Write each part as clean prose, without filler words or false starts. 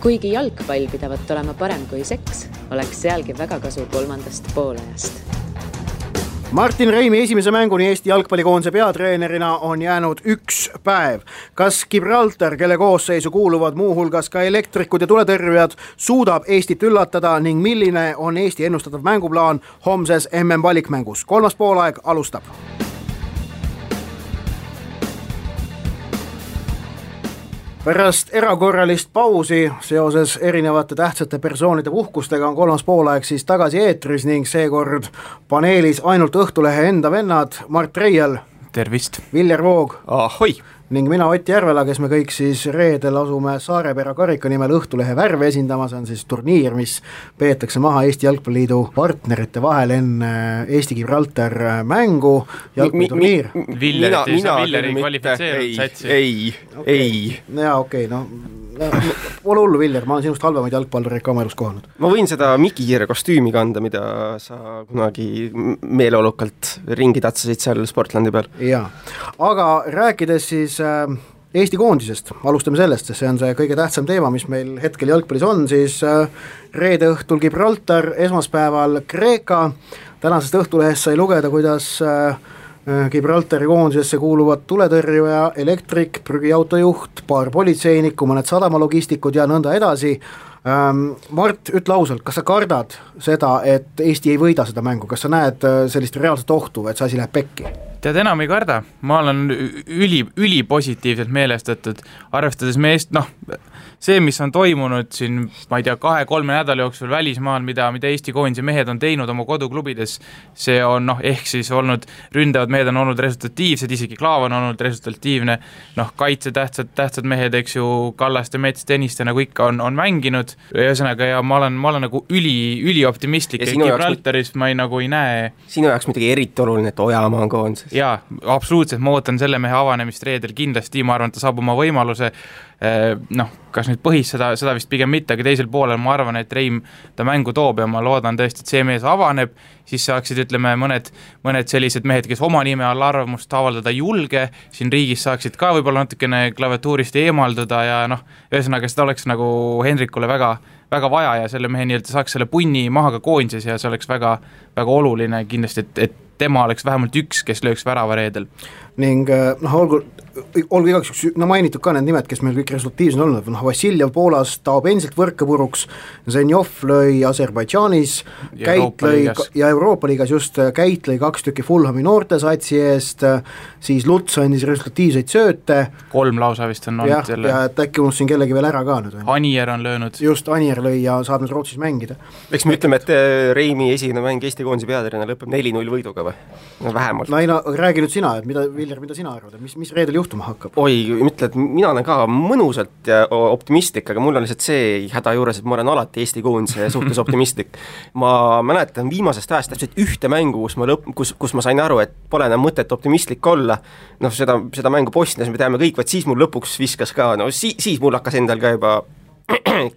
Kuigi jalgpall pidavat olema parem kui seks, oleks sealgi väga kasu kolmandast poolajast. Martin Reimi esimese mänguni Eesti jalgpallikoondise peatreenerina on jäänud 1 päev. Kas Gibraltar, kelle koosseisu kuuluvad muuhulgas ka elektrikud ja tuletõrjujad, suudab Eestit üllatada ning milline on Eesti ennustatav mänguplaan homses MM valikmängus? 3. poolaeg alustab. Pärast erakorralist pausi seoses erinevate tähtsate persoonide puhkustega on 3. poolaeg siis tagasi eetris ning seekord paneelis ainult Õhtulehe enda vennad Mart Reial. Tervist. Viljar Voog. Ahoi. Ning mina Ott Järvela, kes me kõik siis reedel asume Saarepera karika nimel Õhtulehe värve esindama. See on siis turniir, mis peetakse maha Eesti Jalgpalliliidu partnerite vahel enne Eesti Gibraltar mängu. Jalgpalliturniir. Villeri kvalifitseerunud satsi. Ei. Jaa, okei, no ole hullu, Viljar, ma olen sinust halvemaid jalgpallureid ka oma elus kohanud. Ma võin seda Mikikiire kostüümi kanda, mida sa kunagi meeleolukalt ringi tatsasid seal Sportlandi peal. Jaa, aga rääkides siis Eesti koondisest, alustame sellest, sest see on see kõige tähtsam teema, mis meil hetkel jalgpallis on, siis reede õhtul Gibraltar, esmaspäeval Kreeka. Tänasest Õhtulehest sai lugeda, kuidas Gibraltari koondisesse kuuluvad tuletõrjuja, elektrik, prügiautojuht, paar politseinikku, mõned sadamalogistikud ja nõnda edasi. Mart, ütle ausalt, kas sa kardad seda, et Eesti ei võida seda mängu? Kas sa näed sellist reaalset ohtu, et see asi läheb pekki? Tead, enam ei karda. Ma olen üli positiivselt meelestatud, arvestades meest, see, mis on toimunud siin, ma ei tea, 2-3 nädala jooksul välismaal, mida Eesti koondise mehed on teinud oma koduklubides, see on ehk siis olnud, ründavad mehed on olnud resultatiivsed, isegi Klaav on olnud resultatiivne, kaitse tähtsad mehed, eks ju, Kallaste, Mets, Tõniste, nagu ikka on mänginud, ühesõnaga, ja ma olen nagu üli optimistlik, ja Gibraltaris ma ei näe. Sinu jaoks midagi eriti oluline, et Ojamaa on koondises. Jaa, absoluutselt, ma ootan selle mehe avanemist reedel kindlasti, ma arvan, et ta saab oma võimaluse, kas nüüd põhis seda vist pigem mitte, aga teisel poolel ma arvan, et Reim ta mängu toob ja ma loodan tõesti, et see mees avaneb, siis saaksid, ütleme, mõned sellised mehed, kes oma nime all arvamust avaldada julge, siin riigis saaksid ka võib-olla natukene klaviatuurist eemalduda ja ühesõnaga seda oleks nagu Henrikule väga vaja ja selle mehe nii-öelda saaks selle punni maha ka koondises ja see oleks väga oluline kindlasti, et tema oleks vähemalt üks, kes lööks värava reedel. Ning olgu igaks mainitud ka need nimed, kes meil kõik resultatiivsed on olnud. Vassiljev Poolas taob endiselt võrke puruks, Zenjov lõi Aserbaidžaanis, Käit lõi ja Euroopa liigas just Käit lõi 2 tükki Fulhami noortesatsi eest, siis Luts andis resultatiivseid sööte. 3 lausa vist on olnud jälle. Ja et äkki unus siin kellegi veel ära ka nüüd. Anier on löönud. Just, Anier lõi ja saab nüüd Rootsis mängida. Eks me ütleme, et Reimi esimene mäng Eesti koondise peatreenerina lõpeb 4-0 võiduga või? Vähemalt. Räägi nüüd sina, et Viljar, mida sina arvad, mis reedel juhtuma hakkab? Oi, ütle, et mina olen ka mõnusalt ja optimistlik, aga mul on lihtsalt see häda juures, et ma olen alati Eesti koondise suhtes optimistlik. Ma mäletan viimasest ajast täpselt ühte mängu, kus ma sain aru, et pole enam mõtet optimistlik olla. Seda mängu Bosnias me teame kõik, vaid siis mul lõpuks viskas ka, siis mul hakkas endal ka juba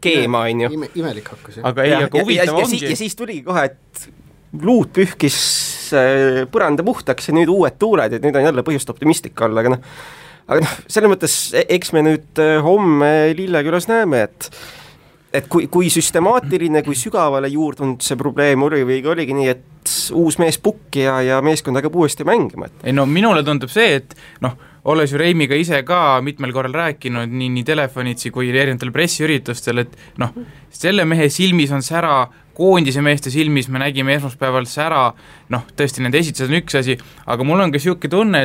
keema, on ju. Imelik hakkas, aga huvitav ongi. Ja siis tuligi kohe, et luud pühkis põranda puhtaks ja nüüd uued tuuled, et nüüd on jälle põhjust optimistlik olla, aga selles mõttes, eks me nüüd homme Lillekülas näeme, et kui süstemaatiline, kui sügavale juurdunud see probleem oligi nii, et uus mees pukki ja meeskond hakkab uuesti mängima. Minule tundub see, et olles ju Reimiga ise ka mitmel korral rääkinud nii telefonitsi kui erinevatel pressiüritustel, et selle mehe silmis on sära, koondise meeste silmis me nägime esmaspäeval sära, tõesti nende esitused on üks asi, aga mul on ka siuke tunne,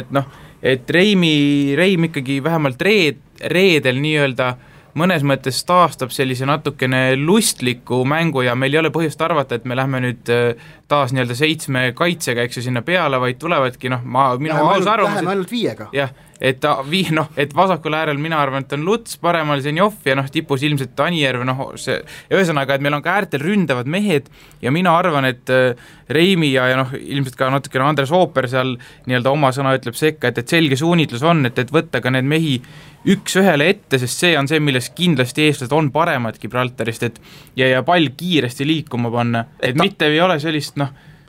et Reim ikkagi vähemalt reedel nii-öelda mõnes mõttes taastab sellise natukene lustliku mängu ja meil ei ole põhjust arvata, et me lähme nüüd taas nii-öelda 7 kaitsega, eks ju sinna peale, vaid tulevadki, minu aus arvamus. Läheme ainult 5-ga. Jah, et vasakul äärel mina arvan, et on Luts, paremal Zenjov ja tipus ilmselt Anijärv, ühesõnaga, et meil on ka äärtel ründavad mehed ja mina arvan, et Reimi ja ilmselt ka natukene Andres Ooper seal nii-öelda oma sõna ütleb sekka, et selge suunitlus on, et võtta ka need mehi üks ühele ette, sest see on see, milles kindlasti eestlased on paremad Gibraltarist, ja pall kiiresti liikuma panna, et mitte ei ole sellist,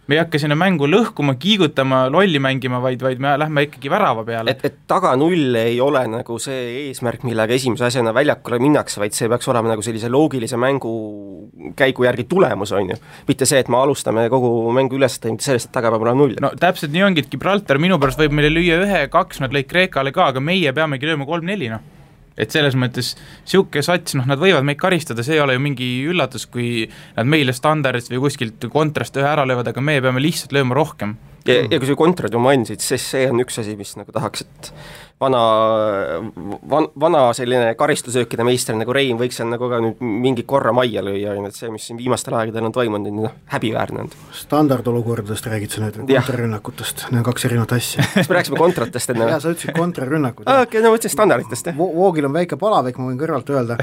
me ei hakka sinna mängu lõhkuma, kiigutama, lolli mängima, vaid me lähme ikkagi värava peale. Et taga 0 ei ole nagu see eesmärk, millega esimese asjana väljakule minnakse, vaid see peaks olema nagu sellise loogilise mängu käigu järgi tulemus, on ju. Mitte see, et me alustame kogu mängu üles, mitte sellest, et taga peab olema 0. No täpselt nii ongi, et Gibraltar minu pärast võib meile lüüa 1-2, nad lõid Kreekale ka, aga meie peamegi lööma 3-4, noh. Et selles mõttes siuke sats, noh, nad võivad meid karistada, see ei ole ju mingi üllatus, kui nad meile standardist või kuskilt kontrast ühe ära löövad, aga meie peame lihtsalt lööma rohkem. Ja kui see kontrad ju mainisid, siis see on üks asi, mis nagu tahaks, et vana selline karistusöökide meister nagu Rein võiks seal nagu ka nüüd mingi korra majja lüüa, et see, mis siin viimastel aegadel on toimunud, on häbiväärne. Standardolukordadest räägid sa nüüd, kontrarünnakutest, need on 2 erinevat asja. Kas me rääksime kontratest enne? Jaa, sa ütlesid kontrarünnakud. Okei, no võtsin standarditest, jah. Voogil on väike palavik, ma võin kõrvalt öelda,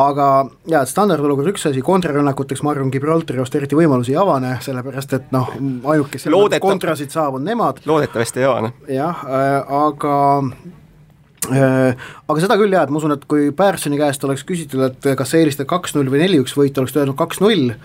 aga jaa, standardolukord üks asi, kontrarünnakuteks ma arvan, Gibraltari ost eriti võimalusi ei avane, sellepärast et noh, ainuke kontrasid saab on nemad. Loodetavasti ei avane. Jah, aga seda küll jah, et ma usun, et kui Pärsoni käest oleks küsitud, et kas see eelistada 2-0 või 4-1 võit, oleks öelnud 2-0,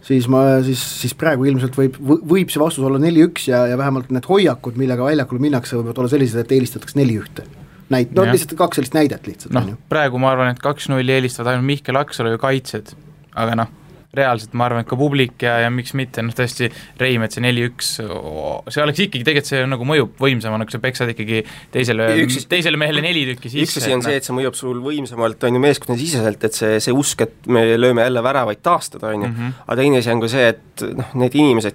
siis praegu ilmselt võib see vastus olla 4-1 ja vähemalt need hoiakud, millega väljakul minnakse, võivad olla sellised, et eelistatakse 4-1. Lihtsalt 2 sellist näidet lihtsalt. No, praegu ma arvan, et 2-0 eelistavad ainult Mihkel Aksalu ja kaitsed, aga noh, reaalselt ma arvan, et ka publik ja miks mitte, noh tõesti Reimet see 4-1, see oleks ikkagi, tegelikult see nagu mõjub võimsamana, kui sa peksad ikkagi teisele mehele 4 tükki sisse. Üks asi on see, et see mõjub sul võimsamalt, on ju meeskonna siseselt, et see usk, et me lööme jälle väravaid taastada, on ju. Aga teine asi on ka see, et noh, need inimesed,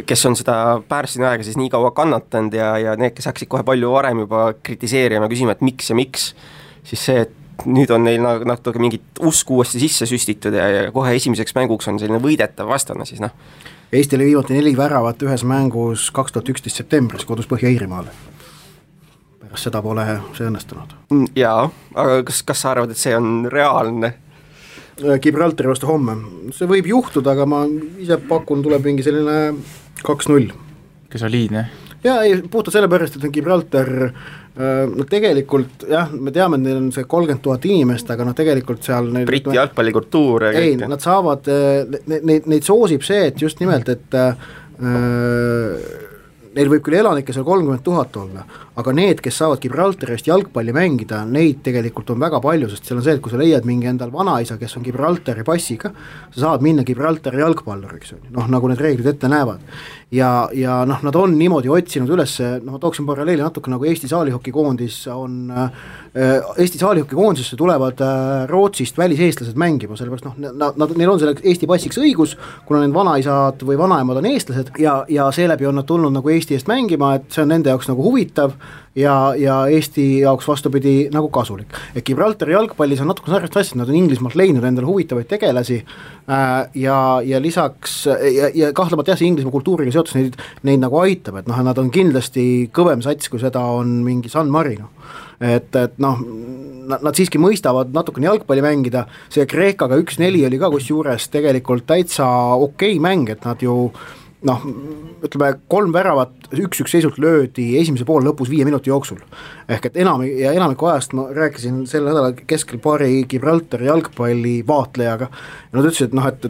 kes on seda Pärsini aega siis nii kaua kannatanud ja need, kes hakkasid kohe palju varem juba kritiseerima, küsima, et miks, siis see, et nüüd on neil natuke mingit usku uuesti sisse süstitud ja kohe esimeseks mänguks on selline võidetav vastane siis noh. Eesti oli viimati 4 väravat ühes mängus 2011 septembris kodus Põhja-Iirimaale. Pärast seda pole see õnnestunud. Jaa, aga kas sa arvad, et see on reaalne? Gibraltari vastu homme. See võib juhtuda, aga ma ise pakun, tuleb mingi selline 2-0. Kes soliidne? Jaa, puhtalt selle pärast, et on Gibraltar no tegelikult jah, me teame, et neil on see 30 000 inimest, aga tegelikult seal Briti jalgpallikultuur ei, nad saavad, neid soosib see, et just nimelt, et neil võib küll elanikke seal 30 000 olla, aga need, kes saavad Gibraltarist jalgpalli mängida, neid tegelikult on väga palju, sest seal on see, et kui sa leiad mingi endal vanaisa, kes on Gibraltari passiga, sa saad minna Gibraltari jalgpalluriks, noh nagu need reeglid ette näevad. Ja noh, nad on niimoodi otsinud üles, noh tooksin paralleeli natuke nagu Eesti saalihokikoondis on, Eesti saalihokikoondisesse tulevad Rootsist väliseestlased mängima, sellepärast noh, neil on selleks Eesti passiks õigus, kuna need vanaisad või vanaemad on eestlased ja seeläbi on nad tulnud nagu Eesti eest mängima, et see on nende jaoks nagu huvitav ja Eesti jaoks vastupidi nagu kasulik. Et Gibraltari jalgpallis on natuke sarnast asja, nad on Inglismaalt leidnud endale huvitavaid tegelasi ja lisaks ja kahtlemata jah, see Inglismaa kultuuriga seotus neid nagu aitab, et noh, nad on kindlasti kõvem sats, kui seda on mingi San Marino. Et noh, nad siiski mõistavad natukene jalgpalli mängida, see Kreekaga 1-4 oli ka kusjuures tegelikult täitsa okei mäng, et nad ju noh, ütleme 3 väravat 1-1 seisult löödi esimese poole lõpus 5 minuti jooksul. Ehk et enamiku ajast ma rääkisin selle nädala keskel paari Gibraltari jalgpalli vaatlejaga ja nad ütlesid, et noh, et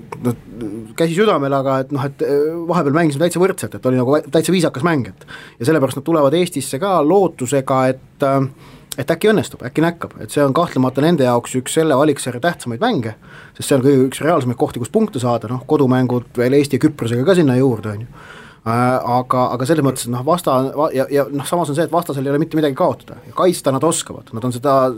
käsi südamel, aga et noh, et vahepeal mängisime täitsa võrdselt, et oli nagu täitsa viisakas mäng, ja sellepärast nad tulevad Eestisse ka lootusega, et äkki õnnestub, äkki näkkab, et see on kahtlemata nende jaoks üks selle valiksarja tähtsamaid mänge, sest see on kõige üks reaalsemaid kohti, kus punkte saada, noh, kodumängud veel Eesti ja Küprosega ka sinna juurde, on ju. Aga selles mõttes, noh, ja noh, samas on see, et vastasel ei ole mitte midagi kaotada ja kaitsta nad oskavad, nad on seda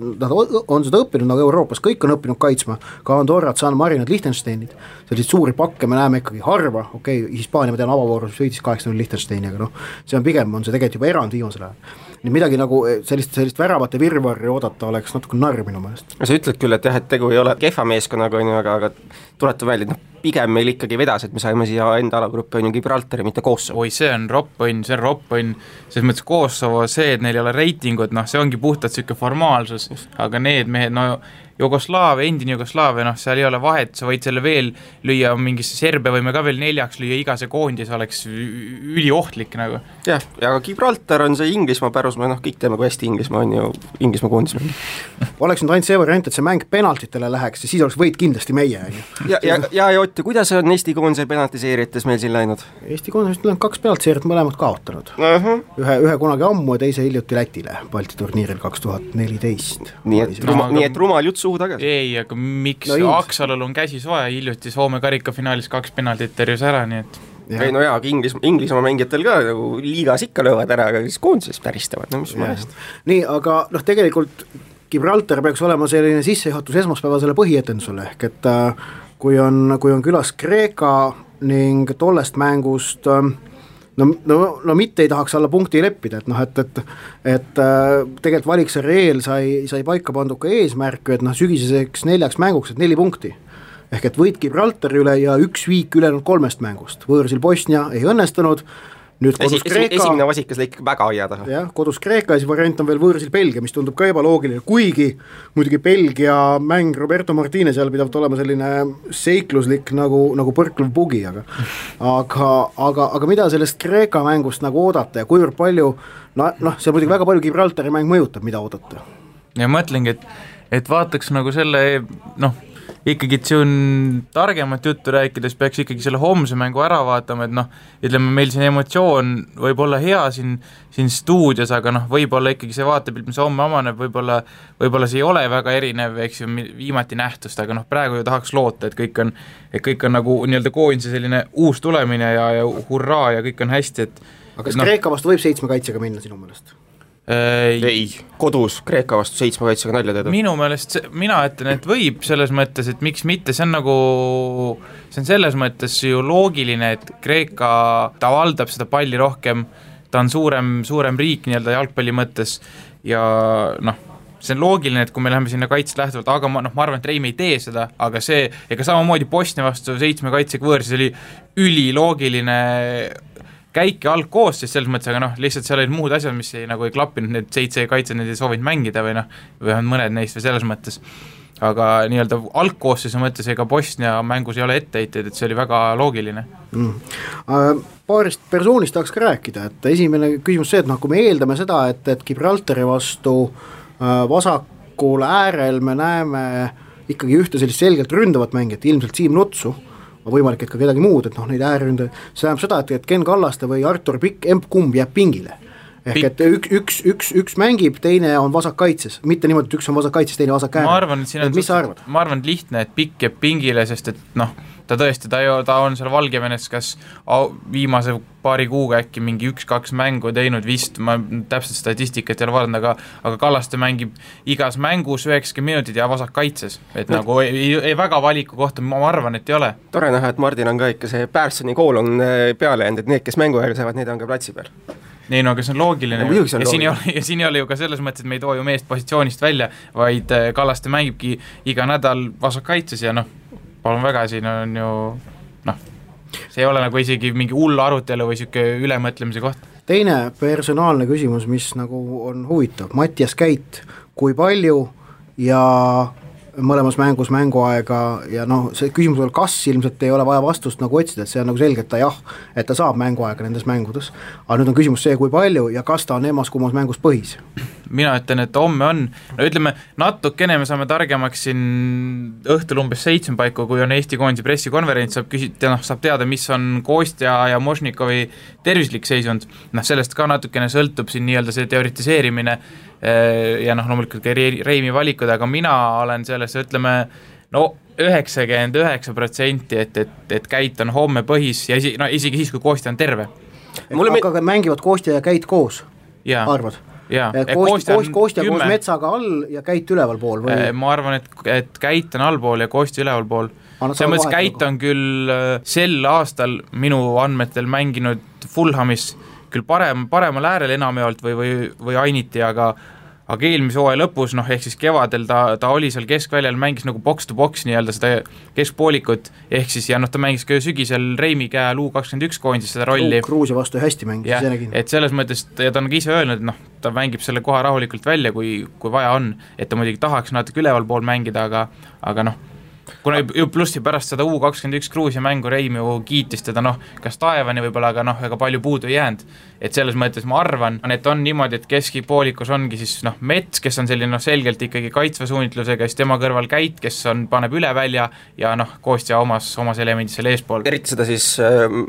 õppinud nagu Euroopas, kõik on õppinud kaitsma, ka Andorrat, San Marinad, Liechtensteinid, selliseid suuri pakke me näeme ikkagi harva, okei, Hispaania ma tean avavoorus võitis 8-0 Liechtensteini, aga noh, see on pigem, on see tegelikult juba erand viimasel ajal. Nii midagi nagu sellist väravate virvarri oodata oleks natuke narr minu meelest. Sa ütled küll, et jah, et tegu ei ole kehva meeskonnaga, aga tuletu välja, et noh, pigem meil ikkagi vedas, et me saime siia enda alagruppi on ju Gibraltari, mitte Kosovo. Oi, see on roppõnn, selles mõttes Kosovo, see, et neil ei ole reitingut, noh, see ongi puhtalt siuke formaalsus, aga need mehed, no endine Jugoslaavia, noh, seal ei ole vahet, sa võid selle veel lüüa mingisse Serbia võime ka veel 4 lüüa, iga see koondis oleks üliohtlik nagu. Jah, ja Gibraltar on see Inglismaa pärusmaa, noh, kõik teeme, kui hästi Inglismaa on ju, Inglismaa koondis. Oleks nüüd ainult see variant, et see mäng penaltitele läheks ja siis oleks võit kindlasti meie. Ja Ott, kuidas on Eesti koondise penaltiseerijates meil siin läinud? Eesti koondis on 2 penaltiseerijat mõlemad kaotanud. Ühe kunagi ammu ja teise hiljuti Lätile Balti turniiril 2014. Nii et rumal jutt suhu tagasi. Ei, aga miks Aksalul on käsi soe, hiljuti Soome karikafinaalis 2 penaltit terjus ära, nii et ei no jaa, Inglismaa mängijatel ka nagu liigas ikka löövad ära, aga siis koondises päristavad, no mis mõnest. Nii, aga noh, tegelikult Gibraltar peaks olema selline sissejuhatus esmaspäevasele põhietendusele, ehk et kui on külas Kreeka ning tollest mängust no mitte ei tahaks alla punkti leppida, et noh, et tegelikult Valiksarja eel sai paika pandud ka eesmärk, et noh, sügiseseks 4 mänguks, et 4 punkti. Ehk et võit Gibraltari üle ja 1 viik ülejäänud 3 mängust. Võõrsil Bosnia ei õnnestunud, nüüd kodus Kreeka. Esimene vasikas lõik väga aia taha. Jah, kodus Kreeka ja siis variant on veel võõrsil Belgia, mis tundub ka ebaloogiline, kuigi muidugi Belgia mäng Roberto Martinez seal pidavat olema selline seikluslik nagu põrklev bugi, aga mida sellest Kreeka mängust nagu oodata ja kuivõrd palju, noh, see muidugi väga palju Gibraltari mäng mõjutab, mida oodata. Ja mõtlengi, et vaataks nagu selle, noh, ikkagi, et see on targemat juttu rääkides, peaks ikkagi selle homse mängu ära vaatama, et noh, ütleme, meil siin emotsioon võib olla hea siin stuudios, aga noh, võib-olla ikkagi see vaatepilt, mis homme amaneb, võib-olla see ei ole väga erinev, eks ju, viimati nähtust, aga noh, praegu ju tahaks loota, et kõik on nagu nii-öelda koondise selline uus tulemine ja hurraa ja kõik on hästi, et aga kas Kreeka vastu võib 7 kaitsega minna sinu meelest? Ei, kodus Kreeka vastu 7 kaitsega nalja teeda. Minu meelest, mina ütlen, et võib selles mõttes, et miks mitte, see on selles mõttes ju loogiline, et Kreeka, ta valdab seda palli rohkem, ta on suurem riik nii-öelda jalgpalli mõttes ja noh, see on loogiline, et kui me läheme sinna kaitset lähtuvalt, aga ma arvan, et Reim ei tee seda, aga see, ega samamoodi Bosnia vastu 7 kaitsega võõrsis oli üliloogiline käik ja algkoostis selles mõttes, aga noh, lihtsalt seal olid muud asjad, mis ei klappinud, need 7 kaitsed, need ei soovinud mängida või noh, või on mõned neist või selles mõttes. Aga nii-öelda algkoostise mõttes ega Bosnia mängus ei ole etteheiteid, et see oli väga loogiline. Paarist persoonist tahaks ka rääkida, et esimene küsimus see, et noh, kui me eeldame seda, et Gibraltari vastu vasakul äärel me näeme ikkagi ühte sellist selgelt ründavat mängijat, ilmselt Siim Nutsu, võimalik, et ka kedagi muud, et noh, neid äärründe, see tähendab seda, et Ken Kallaste või Artur Pikk, kumb jääb pingile. Ehk et üks mängib, teine on vasakkaitses, mitte niimoodi, et üks on vasakkaitses, teine vasak äärel. Mis sa arvad? Ma arvan, et lihtne, et Pikk jääb pingile, sest et noh, ta tõesti, ta on seal Valgevenes kas viimase paari kuuga äkki mingi 1-2 mängu teinud vist, ma täpselt statistikat ei ole vaadanud, aga Kallaste mängib igas mängus 90 minutit ja vasak kaitses, et nagu ei väga valiku kohta, ma arvan, et ei ole. Tore näha, et Mardin on ka ikka see Pärsoni kool on peale jäänud, et need, kes mängu ajal saavad, need on ka platsi peal. Nii, no aga see on loogiline ja siin ei ole ju ka selles mõttes, et me ei too ju meest positsioonist välja, vaid Kallaste mängibki iga nädal vasak kaitses ja noh, palun väga, siin on ju noh, see ei ole nagu isegi mingi hull arutelu või siuke ülemõtlemise koht. Teine personaalne küsimus, mis nagu on huvitav, Mattias Käit, kui palju ja mõlemas mängus mänguaega ja noh, see küsimus on, kas ilmselt ei ole vaja vastust nagu otsida, et see on nagu selge, et ta saab mänguaega nendes mängudes, aga nüüd on küsimus see, kui palju ja kas ta on emas-kummas mängus põhis? Mina ütlen, et homme on, no ütleme, natukene me saame targemaks siin õhtul umbes 7 paiku, kui on Eesti koondise pressikonverents, saab teada, mis on Kostja ja Mošnikovi tervislik seisund, noh sellest ka natukene sõltub siin nii-öelda see teoritiseerimine ja noh, loomulikult ka Reimi valikud, aga mina olen selles, ütleme, no 99%, et Käit on homme põhis ja isegi siis, kui Kostja on terve. Aga mängivad Kostja ja Käit koos, arvad? Kostja koos Metsaga all ja Käit üleval pool või? Ma arvan, et Käit on allpool ja Kostja üleval pool. See mõttes Käit on küll sel aastal minu andmetel mänginud Fulhamis küll paremal äärel enamjaolt või Ainiti, aga aga eelmise hooaja lõpus, noh ehk siis kevadel ta oli seal keskväljal, mängis nagu box to box nii-öelda seda keskpoolikut, ehk siis ja noh, ta mängis ka sügisel Reimi käe U21 koondis seda rolli. Gruusia vastu hästi mängis, ja, et selles mõttes, ja ta on ka ise öelnud, noh, ta mängib selle koha rahulikult välja, kui vaja on, et ta muidugi tahaks natuke üleval pool mängida, aga noh, kuna plussi pärast seda U21 Gruusia mängu Reim ju kiitis teda, noh, kas taevani võib-olla, aga noh, ega palju puudu ei jäänud, et selles mõttes ma arvan, et on niimoodi, et keskipoolikus ongi siis noh, Mets, kes on selline noh, selgelt ikkagi kaitsva suunitlusega, siis tema kõrval Käit, kes paneb üle välja ja noh, Kostja omas elemendis selle eespool. Eriti seda siis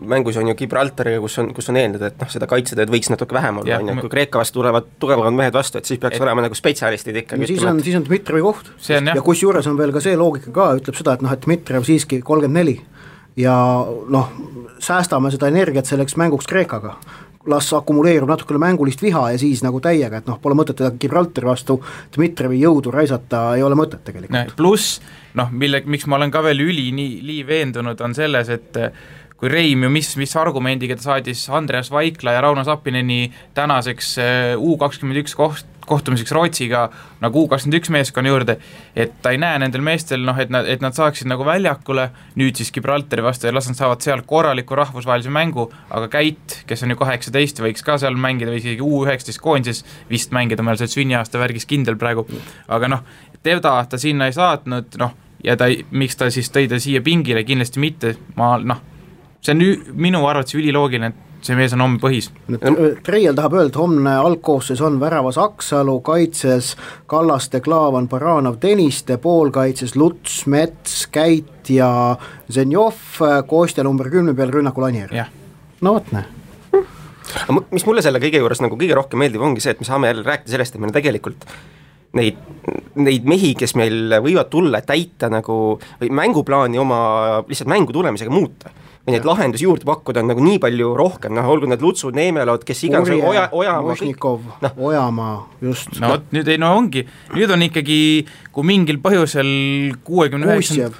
mängus on ju Gibraltariga, kus on eeldud, et noh, seda kaitsetööd võiks natuke vähem olla, kui Kreeka vastu tulevad tugevamad mehed vastu, et siis peaks olema nagu spetsialistid ikkagi. No, siis on Dmitrivi koht ja kus juures on veel ka see loogika ka, ütleb seda, et noh, et Dmitriv siiski 34 ja noh, säästame seda energiat selleks mänguks Kreekaga, las akumuleerub natukene mängulist viha ja siis nagu täiega, et noh, pole mõtet teda Gibraltari vastu Dmitrivi jõudu raisata, ei ole mõtet tegelikult. Pluss, noh, miks ma olen ka veel nii veendunud, on selles, et kui Reim ju mis argumendiga ta saadis Andreas Vaikla ja Rauno Sappineni tänaseks U21 kohtumiseks Rootsiga nagu U21 meeskonna juurde, et ta ei näe nendel meestel, noh, et nad saaksid nagu väljakule, nüüd siis Gibraltari vastu ja las nad saavad seal korraliku rahvusvahelise mängu, aga Käit, kes on ju 18, võiks ka seal mängida või isegi U19 koondises vist mängida, meil see sünniaasta värgis kindel praegu, aga noh, teda ta sinna ei saatnud, noh, ja miks ta siis tõi ta siia pingile, kindlasti mitte, see on minu arvates üliloogiline, et see mees on homme põhis. Treial tahab öelda, homne algkoosseis on väravas Aksalu, kaitses Kallaste, Klaavan, Baranov, Tõniste, poolkaitses Luts, Mets, Käit ja Zenjov, Kostja number 10 peal rünnakul Anier. No võt näe. Mis mulle selle kõige juures nagu kõige rohkem meeldib, ongi see, et me saame jälle rääkida sellest, et meil tegelikult neid mehi, kes meil võivad tulla täita nagu või mänguplaani oma lihtsalt mängu tulemisega muuta või neid lahendusi juurde pakkuda on nagu nii palju rohkem, noh, olgu need Lutsud, Neemelod, kes iganes Ojamaa, Mošnikov, Ojamaa, just. No nüüd ongi, nüüd on ikkagi, kui mingil põhjusel 69.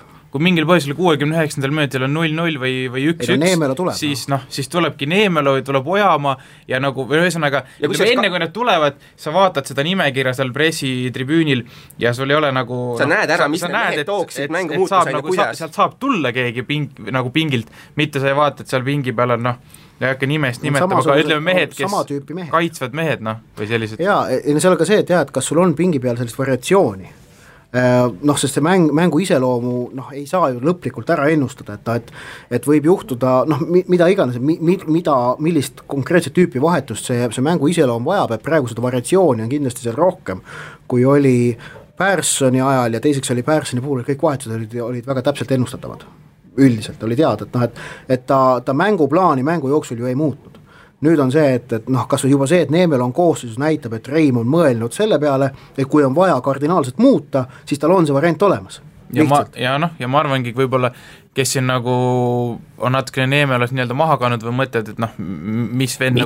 minutil on 0-0 või 1-1, siis tulebki Neemelo, tuleb Ojamaa ja nagu ühesõnaga, enne kui nad tulevad, sa vaatad seda nimekirja seal pressitribüünil ja sul ei ole nagu sa näed ära, mis need mehed tooksid mängu muutus nagu sealt saab tulla keegi nagu pingilt, mitte sa ei vaata, et seal pingi peal on ei hakka nimest nimetama, aga ütleme mehed, kes kaitsvad mehed, või sellised. Jaa, seal on ka see, et kas sul on pingi peal sellist variatsiooni, noh, sest see mängu iseloomu ei saa ju lõplikult ära ennustada, et võib juhtuda, noh, mida iganes, millist konkreetset tüüpi vahetust see mängu iseloom vajab, et praegu seda variatsiooni on kindlasti seal rohkem, kui oli Pärssoni ajal ja teiseks oli Pärssoni puhul, kõik vahetused olid väga täpselt ennustatavad. Üldiselt oli teada, et ta mänguplaani mängu jooksul ju ei muutnud. Nüüd on see, et noh, kas või juba see, et Neemel on koosseisus näitab, et Reim on mõelnud selle peale, et kui on vaja kardinaalselt muuta, siis tal on see variant olemas. Ja ma arvangi, võib-olla, kes siin nagu on natukene Neemelos nii-öelda maha kannud või mõtled, et noh, mis venn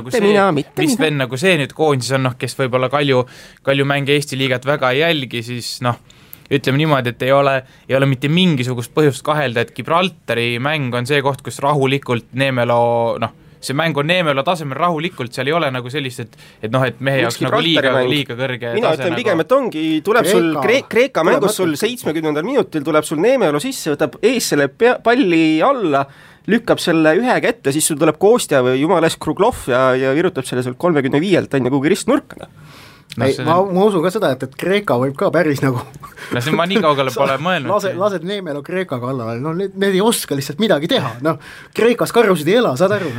nagu see nüüd koondis on, noh, kes võib-olla Kalju mänge Eesti liigat väga ei jälgi, siis noh, ütleme niimoodi, et ei ole mitte mingisugust põhjust kahelda, et Gibraltari mäng on see koht, kus rahulikult Neemelo, noh, see mäng on Neemelo tasemel rahulikult, seal ei ole nagu sellist, et noh, et mehe jaoks nagu liiga kõrge mina ütlen pigem, et ongi, tuleb sul Kreeka mängus sul 70. minutil tuleb sul Neemelo sisse, võtab ees selle palli alla, lükkab selle ühe kätte, siis sul tuleb Kostja või jumales Kruglov ja virutab selle sul 35-lt on kuhugi ristnurka. Ma usun ka seda, et Kreeka võib ka päris nagu see ma nii kaugele pole mõelnud. Lased Neemelo Kreeka kallale, no need ei oska lihtsalt midagi teha, noh, Kreekas karjusid ei ela, saad aru?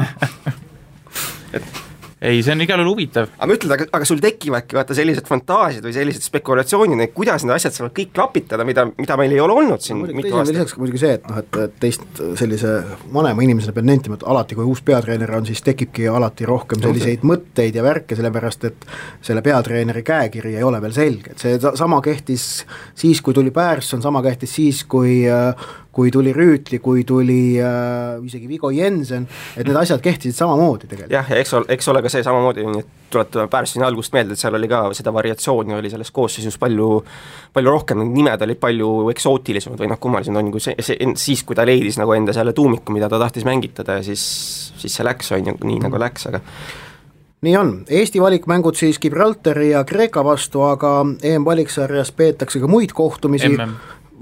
Ei, see on igal juhul huvitav. Aga ma ütlen, aga sul tekivadki vaata sellised fantaasiad või sellised spekulatsioonid, kuidas need asjad saavad kõik klapitada, mida meil ei ole olnud siin mitu aastat. Lisaks muidugi see, et teist sellise vanema inimesena pean nentima, et alati kui uus peatreener on, siis tekibki alati rohkem selliseid mõtteid ja värke, sellepärast et selle peatreeneri käekiri ei ole veel selge, et see sama kehtis siis, kui tuli Pärsson, sama kehtis siis, kui tuli Rüütli, kui tuli isegi Vigo Jensen, et need asjad kehtisid samamoodi tegelikult. Jah, ja eks ole ka see samamoodi, tuletame Pärssoni algust meelde, et seal oli ka seda variatsiooni oli selles koosseisus palju rohkem, nimed olid palju eksootilisemad või noh, kummalised on kui siis, kui ta leidis nagu enda selle tuumiku, mida ta tahtis mängitada ja siis see läks, on ju nii nagu läks, aga nii on, Eesti valikmängud siis Gibraltari ja Kreeka vastu, aga EM-valiksarjas peetakse ka muid kohtumisi,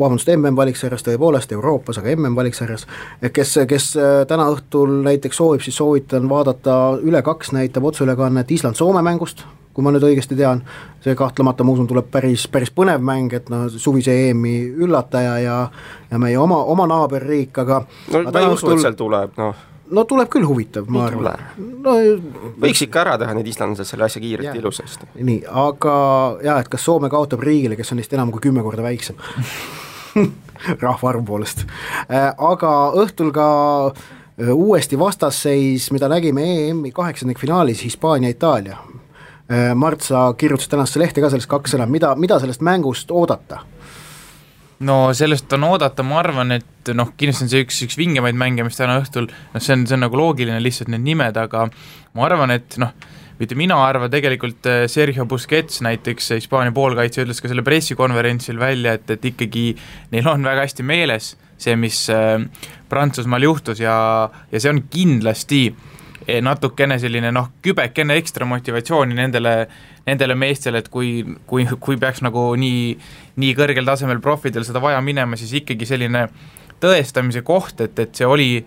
MM-valiksarjas tõepoolest Euroopas, aga MM-valiksarjas, kes täna õhtul näiteks soovib, siis soovitan vaadata Üle2 näitab otseülekannet Island-Soome mängust, kui ma nüüd õigesti tean, see kahtlemata ma usun tuleb päris põnev mäng, et suvise EM-i üllataja ja meie oma naaberriik, aga ma ei usu, et seal tuleb, No tuleb küll huvitav, ma arvan. Võiks ikka ära teha need islandlased selle asja kiirelt ilusasti. Nii, aga et kas Soome kaotab riigile, kes on neist enam kui 10 korda väiksem rahvaarvu poolest. Aga õhtul ka uuesti vastasseis, mida nägime EM-i 8. finaalis Hispaania-Itaalia. Mart, sa kirjutasid tänast lehte ka sellest 2 sõna, mida sellest mängust oodata? No sellest on oodata, ma arvan, et kindlasti on see üks vingemaid mänge, mis täna õhtul, see on nagu loogiline lihtsalt need nimed, aga ma arvan, et mitte mina arvan tegelikult Sergio Busquets näiteks Hispaania poolkaitse ütles ka selle pressikonverentsil välja, et ikkagi neil on väga hästi meeles see, mis Prantsusmaal juhtus ja see on kindlasti natukene selline kübekene ekstra motivatsiooni nendele meestele, et kui peaks nagu nii kõrgel tasemel profidel seda vaja minema, siis ikkagi selline tõestamise koht, et see oli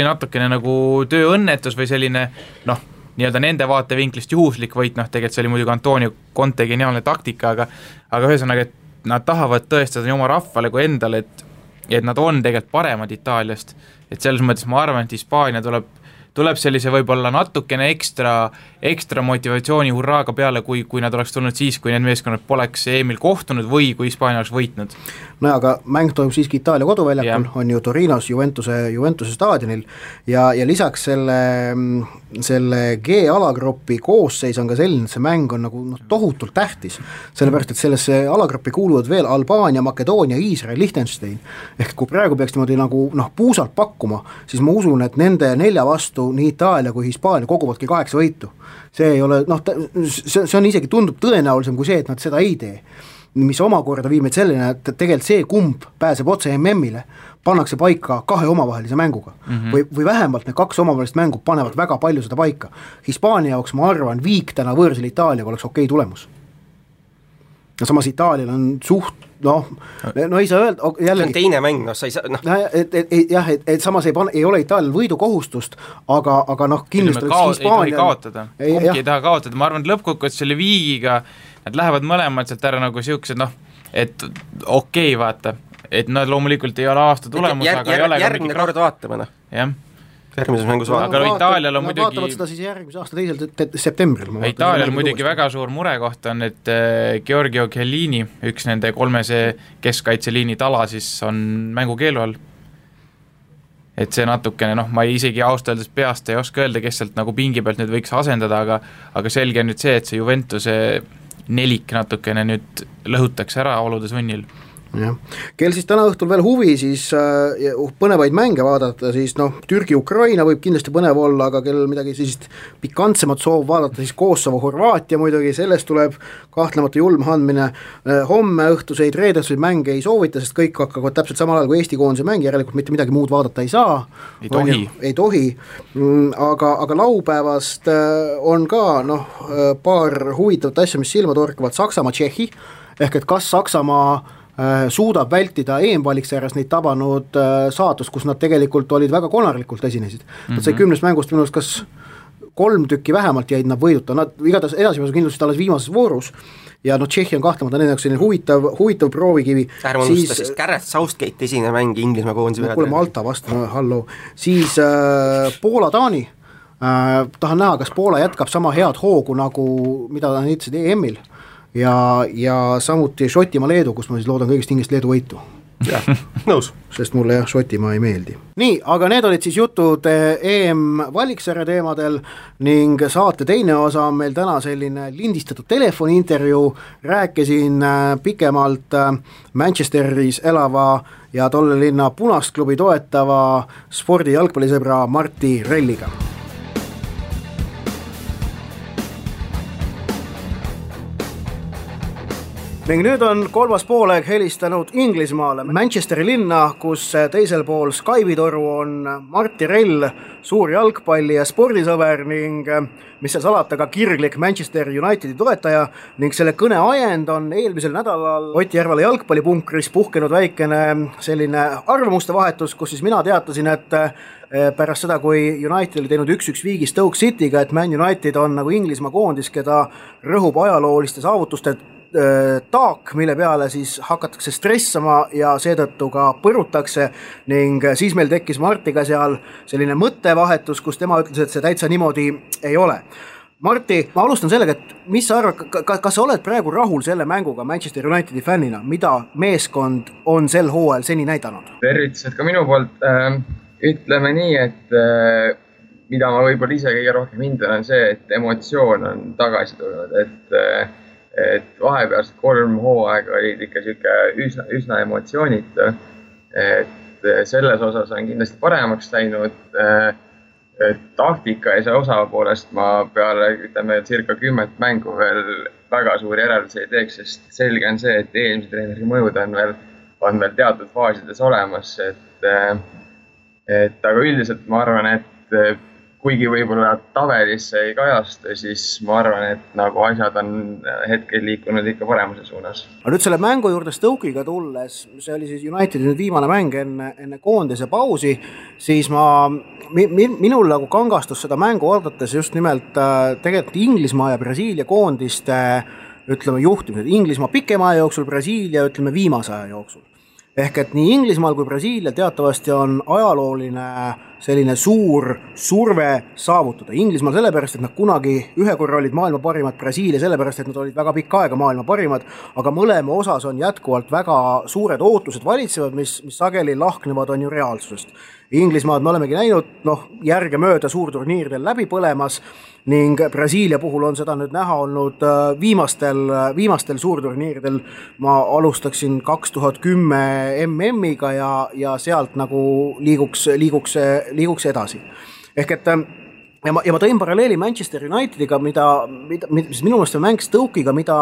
natukene nagu tööõnnetus või selline nii-öelda nende vaatevinklist juhuslik võit, tegelikult see oli muidugi Antonio Conte geniaalne taktika, aga ühesõnaga, et nad tahavad tõestada nii oma rahvale kui endale, et nad on tegelikult paremad Itaaliast, et selles mõttes ma arvan, et Hispaania tuleb sellise võib-olla natukene ekstra motivatsiooni hurraaga peale, kui nad oleks tulnud siis, kui need meeskonnad poleks EM-il kohtunud või kui Hispaania oleks võitnud. No aga mäng toimub siiski Itaalia koduväljakul, on ju Torinos Juventuse staadionil ja lisaks selle G-alagrupi koosseis on ka selline, et see mäng on nagu tohutult tähtis, sellepärast, et sellesse alagruppi kuuluvad veel Albaania, Makedoonia, Iisrael, Liechtenstein, ehk kui praegu peaks niimoodi nagu puusalt pakkuma, siis ma usun, et nende 4 vastu nii Itaalia kui Hispaania koguvadki 8 võitu. See ei ole, see on isegi tundub tõenäolisem kui see, et nad seda ei tee, mis omakorda viib meid selline, et tegelikult see kumb pääseb otse MM-ile, pannakse paika 2 omavahelise mänguga või vähemalt need 2 omavahelist mängu panevad väga palju seda paika. Hispaania jaoks ma arvan, viik täna võõrsil Itaaliaga oleks okei tulemus. Ja samas Itaalial on suht ei saa öelda jällegi, see on teine mäng, sa ei saa et samas ei ole Itaalial võidukohustust, aga kindlasti Hispaania ei taha kaotada, ma arvan, et lõppkokkuvõttes selle viigiga nad lähevad mõlemad sealt ära nagu siuksed, et okei, vaata, et nad loomulikult ei ole aasta tulemus, aga ei ole järgmine kord vaatame, jah. Järgmises mängus vaatame. Aga Itaalial on muidugi vaatavad seda siis järgmise aasta 2. septembril. Itaalial muidugi väga suur murekoht on, et Giorgio Chiellini, üks nende 3 keskkaitseliini tala siis on mängukeelu all. Et see natukene, ma isegi ausalt öeldes peast ei oska öelda, kes sealt nagu pingi pealt nüüd võiks asendada, aga selge on nüüd see, et see Juventuse nelik natukene nüüd lõhutakse ära oludes võnnil. Kel siis täna õhtul veel huvi, siis põnevaid mänge vaadata, siis Türgi-Ukraina võib kindlasti põnev olla, aga kel midagi siis pikantsemat soov vaadata, siis Kosovo-Horvaatia muidugi, sellest tuleb kahtlemata julm andmine. Homme õhtuseid reedetuseid mänge ei soovita, sest kõik hakkavad täpselt samal ajal kui Eesti koondise mäng, järelikult mitte midagi muud vaadata ei saa. Ei tohi. Aga laupäevast on ka paar huvitavat asja, mis silma torkavad. Saksamaa-Tšehhi, ehk et kas Saksamaa suudab vältida EM-valiksarjas neid tabanud saatust, kus nad tegelikult olid väga konarlikult esinesid. Nad sai 10 mängust minust kas 3 tükki vähemalt jäid nad võiduta, nad igatahes edasipääsu kindlasti alles viimases voorus ja Tšehhi on kahtlemata nende jaoks selline huvitav proovikivi. Ärme unusta siis Gareth Southgate esine mäng Inglismaa koondise peale. Kuule Malta vastu, hallo. Siis Poola-Taani, tahan näha, kas Poola jätkab sama head hoogu nagu mida ta näitasid EM-il. Ja samuti Šotimaa-Leedu, kus ma siis loodan kõigest hingest Leedu võitu. Jah, nõus. Sest mulle Šotimaa ei meeldi. Nii, aga need olid siis jutud EM-valiksarja teemadel ning saate teine osa on meil täna selline lindistatud telefoniintervjuu. Rääkisin pikemalt Manchesteris elava ja tolle linna Punast klubi toetava spordi jalgpallisõbra Martti Relliga. ning nüüd on kolmas poolaeg helistanud Inglismaale, Manchesteri linna, kus teisel pool Skype'i toru on Martti Rell, suur jalgpalli- ja spordisõber ning mis seal salata ka kirglik Manchester Unitedi toetaja ning selle kõne ajend on eelmisel nädalal Ott Järvela jalgpallipunkris puhkenud väikene selline arvamuste vahetus, kus siis mina teatasin, et pärast seda, kui United oli teinud 1-1 viigi Stoke City'ga, et Man United on nagu Inglismaa koondis, keda rõhub ajalooliste saavutuste taak, mille peale siis hakatakse stressama ja seetõttu ka põrutakse ning siis meil tekkis Martiga seal selline mõttevahetus, kus tema ütles, et see täitsa niimoodi ei ole. Marti, ma alustan sellega, et mis sa arvad, kas sa oled praegu rahul selle mänguga Manchester Unitedi fännina, mida meeskond on sel hooajal seni näidanud? Tervitused ka minu poolt. Ütleme nii, et mida ma võib-olla ise kõige rohkem hindan on see, et emotsioon on tagasi tulnud, et vahepealsed 3 hooaega olid ikka üsna emotsioonitu, et selles osas on kindlasti paremaks läinud. Taktika ja see osapoolest ma peale circa 10 mängu veel väga suuri järeldusi ei teeks, sest selge on see, et eelmise treeneri mõjud on veel teatud faasides olemas, et aga üldiselt ma arvan, et kuigi võib-olla tabelisse ei kajastu, siis ma arvan, et nagu asjad on hetkel liikunud ikka paremuse suunas. Aga nüüd selle mängu juurde Stoke'iga tulles, see oli siis Unitedi nüüd viimane mäng enne koondise pausi, siis minul nagu kangastus seda mängu odates just nimelt tegelikult Inglismaa ja Brasiilia koondiste juhtimised. Inglismaa pikema aja jooksul, Brasiilia viimase aja jooksul. Ehk et nii Inglismaal kui Brasiilia teatavasti on ajalooline selline suur surve saavutada. Inglismaal sellepärast, et nad kunagi ühe korra olid maailma parimad, Brasiilia sellepärast, et nad olid väga pikka aega maailma parimad, aga mõlema osas on jätkuvalt väga suured ootused valitsevad, mis sageli lahknevad on ju reaalsusest. Inglismaad me olemegi näinud järgemööda suurturniiridel läbi põlemas ning Brasiilia puhul on seda nüüd näha olnud viimastel suurturniiridel. Ma alustaksin 2010 MM-iga ja sealt nagu liiguks edasi. Ehk et ja ma tõin paralleeli Manchester Unitediga, mis minu meelest on mäng Stoke'iga, mida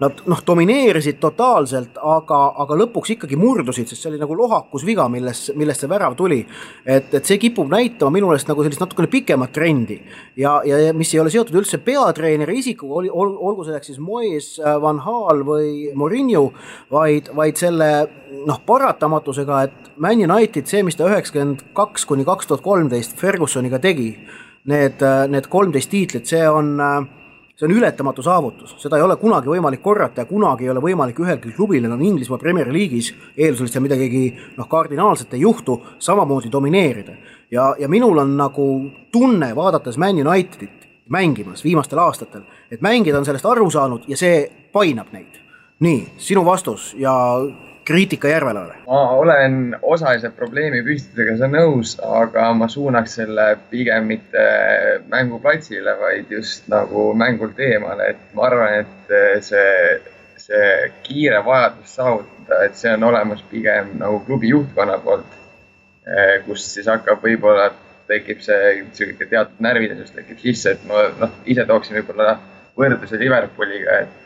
nad domineerisid totaalselt, aga lõpuks ikkagi murdusid, sest see oli nagu lohakus viga, millest see värav tuli. Et see kipub näitama minu meelest nagu sellist natukene pikemat trendi ja mis ei ole seotud üldse peatreeneri isikuga, olgu selleks siis Moyes, Van Gaal või Mourinho, vaid selle paratamatusega, et Man United, see mis ta 92 kuni 2013 Fergusoniga tegi, need 13 tiitlit, see on ületamatu saavutus, seda ei ole kunagi võimalik korrata ja kunagi ei ole võimalik ühelgi klubil on Inglismaa Premier League'is eeldusel midagi kardinaalselt ei juhtu, samamoodi domineerida. Ja minul on nagu tunne vaadates Man Unitedit mängimas viimastel aastatel, et mängijad on sellest aru saanud ja see painab neid. Nii, sinu vastus ja kriitika Järvelale. Ma olen osalise probleemi püstitusega nõus, aga ma suunaks selle pigem mitte mänguplatsile, vaid just nagu mängult eemale. Et ma arvan, et see kiire vajadus saavutada, et see on olemas pigem nagu klubi juhtkonna poolt, kus siis hakkab võib-olla tekib see teatud närvilisus tekib sisse, et ma ise tooksin võib-olla võrdluse Liverpooliga, et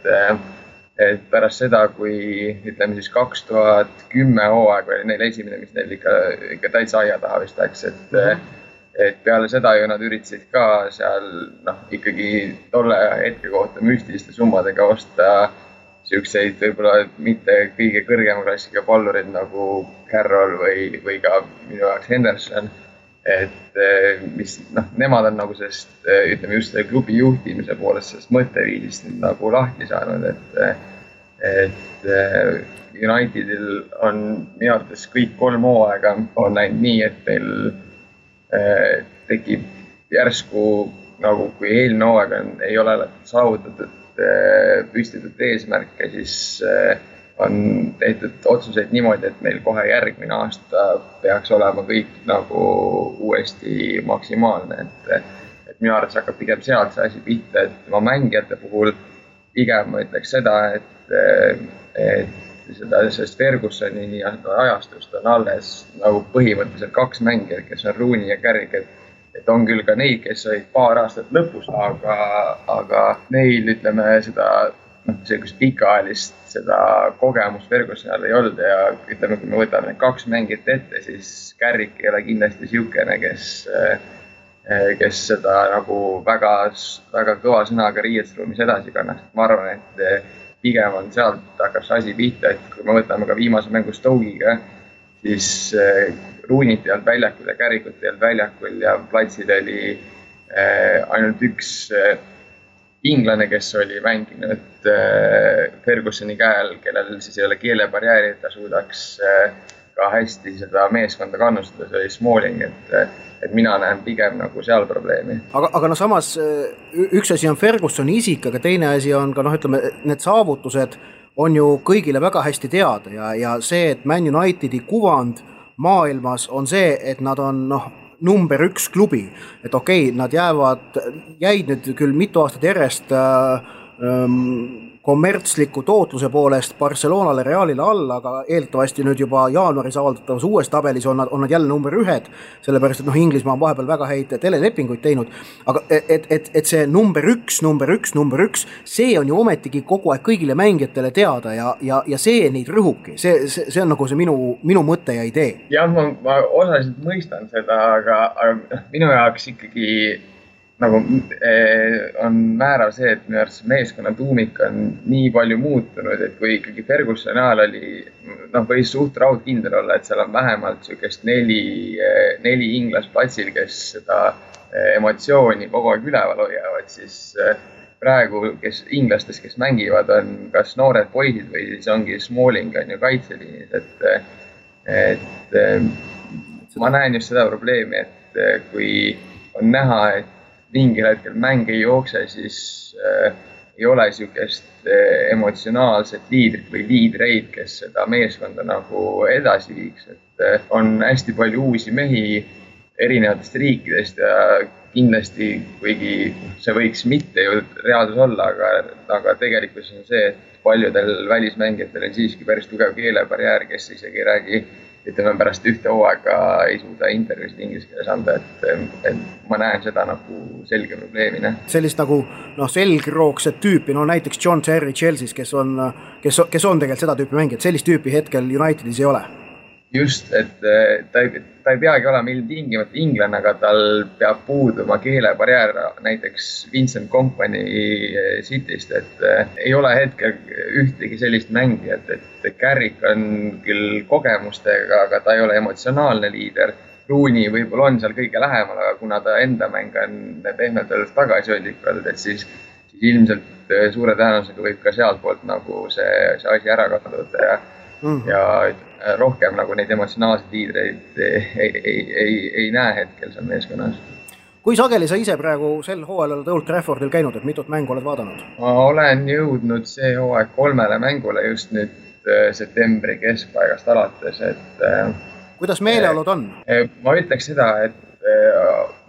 pärast seda, kui ütleme siis 2010 hooaeg oli neil esimene, mis neil ikka täitsa aia taha vist läks, et peale seda ju nad üritasid ka seal ikkagi tolle hetke kohta müstiliste summadega osta siukseid võib-olla mitte kõige kõrgema klassiga pallurid nagu Carroll või ka minu jaoks Henderson, et mis nemad on nagu sellest, ütleme just selle klubi juhtimise poolest sellest mõtteviisist nagu lahti saanud, et Unitedil on minu arvates kõik 3 hooaega on läinud nii, et meil tekib järsku nagu kui eelmine hooaeg ei ole saavutatud püstitud eesmärke, siis on tehtud otsuseid niimoodi, et meil kohe järgmine aasta peaks olema kõik nagu uuesti maksimaalne, et minu arvates hakkab pigem sealt see asi pihta, et ma mängijate puhul pigem ma ütleks seda, et sellest Fergusoni ajastust on alles nagu põhimõtteliselt 2 mängijat, kes on Rooney ja Carrick, et on küll ka neid, kes olid paar aastat lõpus, aga neil ütleme seda sellist pikaajalist seda kogemust Fergusonil ei olnud ja ütleme, kui me võtame need 2 mängijat ette, siis Carrick ei ole kindlasti siukene, kes seda nagu väga kõva sõnaga riietusruumis edasi kannaks. Ma arvan, et pigem on sealt hakkab see asi pihta, et kui me võtame ka viimase mängu Stoke'iga, siis Rooney't ei olnud väljakul ja Carrickut ei olnud väljakul ja platsil oli ainult üks inglane, kes oli mänginud Fergusoni käel, kellel siis ei ole keelebarjääri, et ta suudaks ka hästi seda meeskonda kannustada, see oli Smalling, et mina näen pigem nagu seal probleemi. Aga samas üks asi on Fergusoni isik, aga teine asi on ka ütleme, need saavutused on ju kõigile väga hästi teada ja see, et Man Unitedi kuvand maailmas on see, et nad on number 1 klubi, et okei, nad jäid nüüd küll mitu aastat järjest kommertsliku tootluse poolest Barcelonale, Realile alla, aga eeldatavasti nüüd juba jaanuaris avaldatavas uues tabelis on nad jälle number 1, sellepärast, et Inglismaa on vahepeal väga häid telelepinguid teinud, aga et see number 1, see on ju ometigi kogu aeg kõigile mängijatele teada ja see neid rõhubki, see on nagu see minu mõte ja idee. Jah, ma osaliselt mõistan seda, aga minu jaoks ikkagi nagu on määrav see, et minu arvates meeskonna tuumik on nii palju muutunud, et kui ikkagi Fergusoni ajal oli, võis suht raudkindel olla, et seal on vähemalt sükest 4 inglast platsil, kes seda emotsiooni kogu aeg üleval hoiavad, siis praegu inglastest, kes mängivad, on kas noored poisid või siis ongi Smalling on ju kaitseliinis, et ma näen just seda probleemi, et kui on näha, et mingil hetkel mäng ei jookse, siis ei ole sükest emotsionaalset liidrit või liidreid, kes seda meeskonda nagu edasi viiks. Et on hästi palju uusi mehi erinevatest riikidest ja kindlasti, kuigi see võiks mitte ju reaalsus olla, aga tegelikult on see, et paljudel välismängijatel on siiski päris tugev keelebarjäär, kes isegi ei räägi, ütleme pärast ühte hooaega ei suuda intervjuusid inglise keeles anda, et ma näen seda nagu selge probleemina. Sellist nagu selgroogset tüüpi, näiteks John Terry Chelsea's, kes on tegelikult seda tüüpi mängijad, sellist tüüpi hetkel Unitedis ei ole. Just, et ta ei peagi olema ilmtingimata inglane, aga tal peab puuduma keelebarjäär, näiteks Vincent Kompany Cityst, et ei ole hetkel ühtegi sellist mängijat, et Carrick on küll kogemustega, aga ta ei ole emotsionaalne liider. Rooney võib-olla on seal kõige lähemal, aga kuna ta enda mäng on pehmelt öeldes tagasihoidlik olnud, et siis ilmselt suure tõenäosusega võib ka sealt poolt nagu see asi ära kaduda ja rohkem nagu neid emotsionaalseid liidreid ei näe hetkel seal meeskonnas. Kui sageli sa ise praegu sel hooajal oled Old Traffordil käinud, et mitut mängu oled vaadanud? Ma olen jõudnud see hooaeg 3 mängule just nüüd septembri keskpaigast alates, et kuidas meeleolud on? Ma ütleks seda, et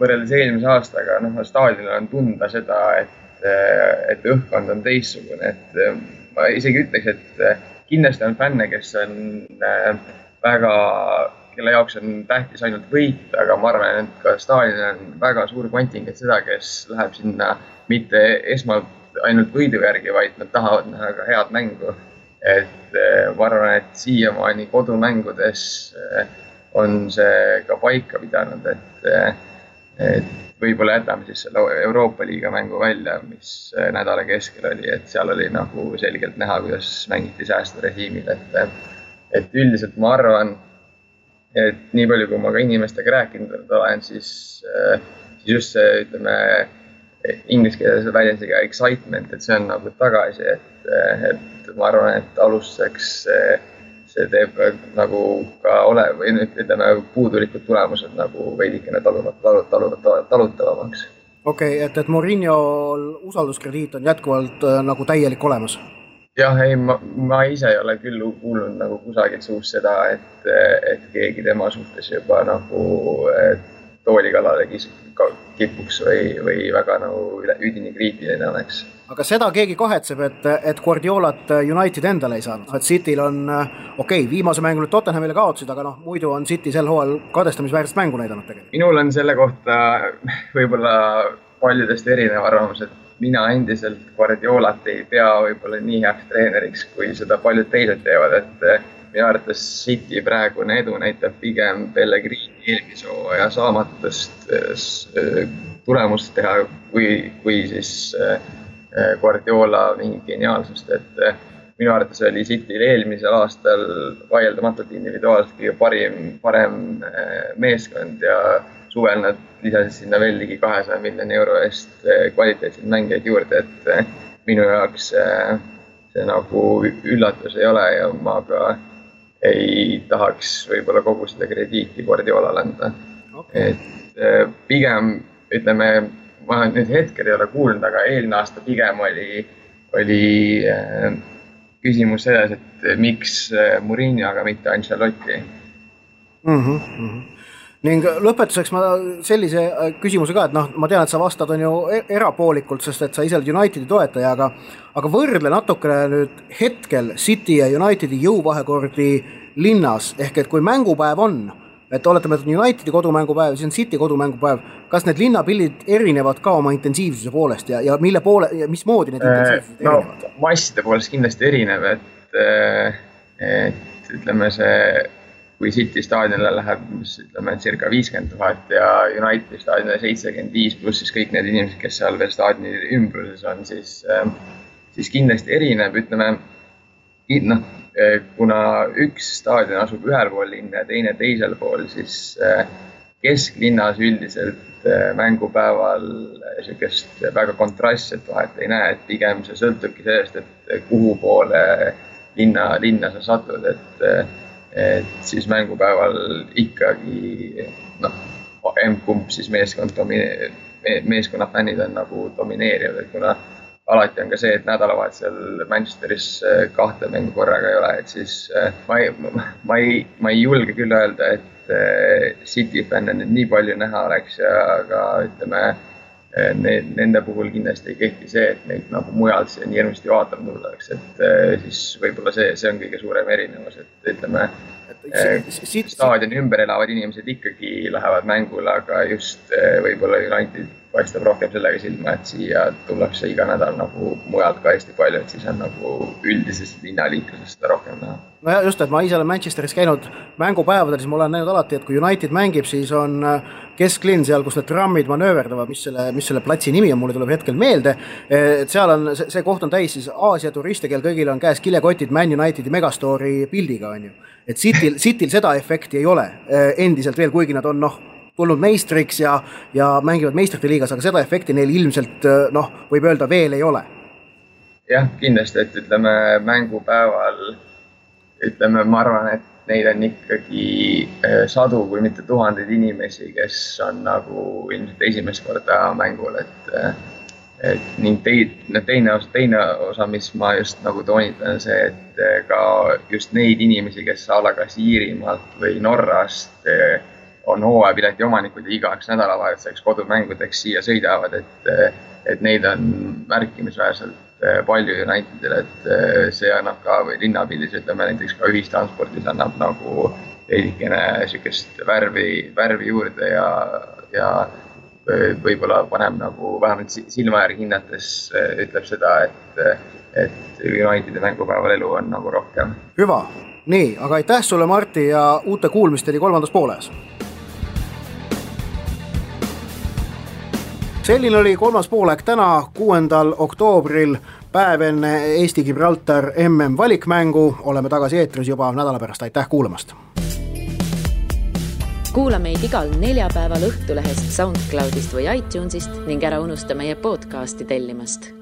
võrreldes eelmise aastaga staadionil on tunda seda, et õhkkond on teistsugune, et ma isegi ütleks, et kindlasti on fänne, kes on kelle jaoks on tähtis ainult võit, aga ma arvan, et ka staadionil on väga suur kontingent seda, kes läheb sinna mitte esmalt ainult võidu järgi, vaid nad tahavad näha ka head mängu. Et ma arvan, et siiamaani kodumängudes on see ka paika pidanud, et võib-olla jätame siis selle Euroopa liiga mängu välja, mis nädala keskel oli, et seal oli nagu selgelt näha, kuidas mängiti säästurežiimil, et üldiselt ma arvan, et nii palju, kui ma ka inimestega rääkinud olen, siis just see, ütleme, inglise keeles väljendusega excitement, et see on nagu tagasi, et ma arvan, et alustuseks see teeb nagu ka või ütleme puudulikud tulemused nagu veidikene talutavamaks. Okei, et Mourinho'l usalduskrediit on jätkuvalt nagu täielik olemas? Jah, ei, ma ise ei ole küll kuulnud nagu kusagilt suust seda, et keegi tema suhtes juba nagu tooli kallale kipuks või väga nagu üdini kriitiline oleks. Aga seda keegi kahetseb, et Guardiolat United endale ei saanud. Et Cityl on, viimase mängu nüüd Tottenhamile kaotasid, aga muidu on City sel hooajal kadestamisväärset mängu näidanud tegelikult. Minul on selle kohta võib-olla paljudest erinev arvamus, et mina endiselt Guardiolat ei pea võib-olla nii heaks treeneriks, kui seda paljud teised teevad, et minu arvates City praegune edu näitab pigem Pellegrini eelmise hooaja saamatust tulemust teha, kui siis Guardiola mingi geniaalsust, et minu arvates oli Cityl eelmisel aastal vaieldamatult individuaalselt kõige parem meeskond ja suvel nad lisasid sinna veel ligi 200 miljoni euro eest kvaliteetseid mängijaid juurde, et minu jaoks see nagu üllatus ei ole ja ma ka ei tahaks võib-olla kogu seda krediiti Guardiolale anda. Okay. Et pigem, ütleme, ma nüüd hetkel ei ole kuulnud, aga eelmine aasta pigem oli küsimus selles, et miks Mourinho, aga mitte Ancelotti. Ning lõpetuseks ma sellise küsimuse ka, et ma tean, et sa vastad on ju erapoolikult, sest et sa ise oled Unitedi toetaja, aga võrdle natukene nüüd hetkel City ja Unitedi jõuvahekordi linnas, ehk et kui mängupäev on, et oletame, et Unitedi kodumängupäev, siis on City kodumängupäev, kas need linnapildid erinevad ka oma intensiivsuse poolest ja mille poole ja mismoodi need intensiivsused erinevad? No, masside poolest kindlasti erinev, et ütleme see kui City staadionile läheb, ütleme, circa 50 000 ja Unitedi staadionile 75 pluss siis kõik need inimesed, kes seal veel staadioni ümbruses on, siis kindlasti erineb, ütleme, kuna üks staadion asub ühel pool linna ja teine teisel pool, siis kesklinnas üldiselt mängupäeval niisugust väga kontrastset vahet ei näe, et pigem see sõltubki sellest, et kuhu poole linna sa satud, et siis mängupäeval ikkagi kumb siis meeskonna fännid on nagu domineerivad, et kuna alati on ka see, et nädalavahetusel Manchesteris 2 mängu korraga ei ole, et siis ma ei julge küll öelda, et City fänne nüüd nii palju näha oleks, aga ütleme, nende puhul kindlasti ei kehti see, et neid nagu mujalt see nii hirmasti vaatama tullakse, et siis võib-olla see on kõige suurem erinevus, et ütleme, staadioni ümber elavad inimesed ikkagi lähevad mängule, aga just võib-olla United paistab rohkem sellega silma, et siia tullakse iga nädal nagu mujalt ka hästi palju, et siis on nagu üldisest linnaliiklusest seda rohkem näha. No ja just, et ma ise olen Manchesteris käinud mängupäevadel, siis ma olen näinud alati, et kui United mängib, siis on kesklinn seal, kus need trammid manööverdavad, mis selle platsi nimi on, mulle tuleb hetkel meelde, et seal on, see koht on täis siis Aasia turiste, kel kõigil on käes kilekotid Man Unitedi Megastory pildiga, on ju. Et Cityl seda efekti ei ole endiselt veel, kuigi nad on tulnud meistriks ja mängivad meistrite liigas, aga seda efekti neil ilmselt võib öelda veel ei ole. Jah, kindlasti, et ütleme mängupäeval, ütleme, ma arvan, et neid on ikkagi sadu, kui mitte tuhandeid inimesi, kes on nagu ilmselt esimest korda mängul, et ning teine osa, mis ma just nagu toonitan, see, et ka just neid inimesi, kes kas Iirimaalt või Norrast on hooajapileti omanikud ja igaks nädalavahetuseks kodumängudeks siia sõidavad, et neid on märkimisväärselt palju Unitedil, et see annab ka linnapildis, ütleme näiteks ka ühistranspordis annab nagu veidikene niisugust värvi juurde ja võib-olla paneb nagu vähemalt silma järgi hinnates ütleb seda, et Unitedi mängupäeval elu on nagu rohkem. Hüva, nii, aga aitäh sulle, Martti, ja uute kuulmisteni 3. pooles. Selline oli 3. poolek täna 6. oktoobril, päev enne Eesti-Gibraltar MM valikmängu. Oleme tagasi eetris juba nädala pärast. Aitäh kuulamast! Kuula meid igal neljapäeval Õhtulehest, SoundCloudist või iTunesist ning ära unusta meie podcasti tellimast.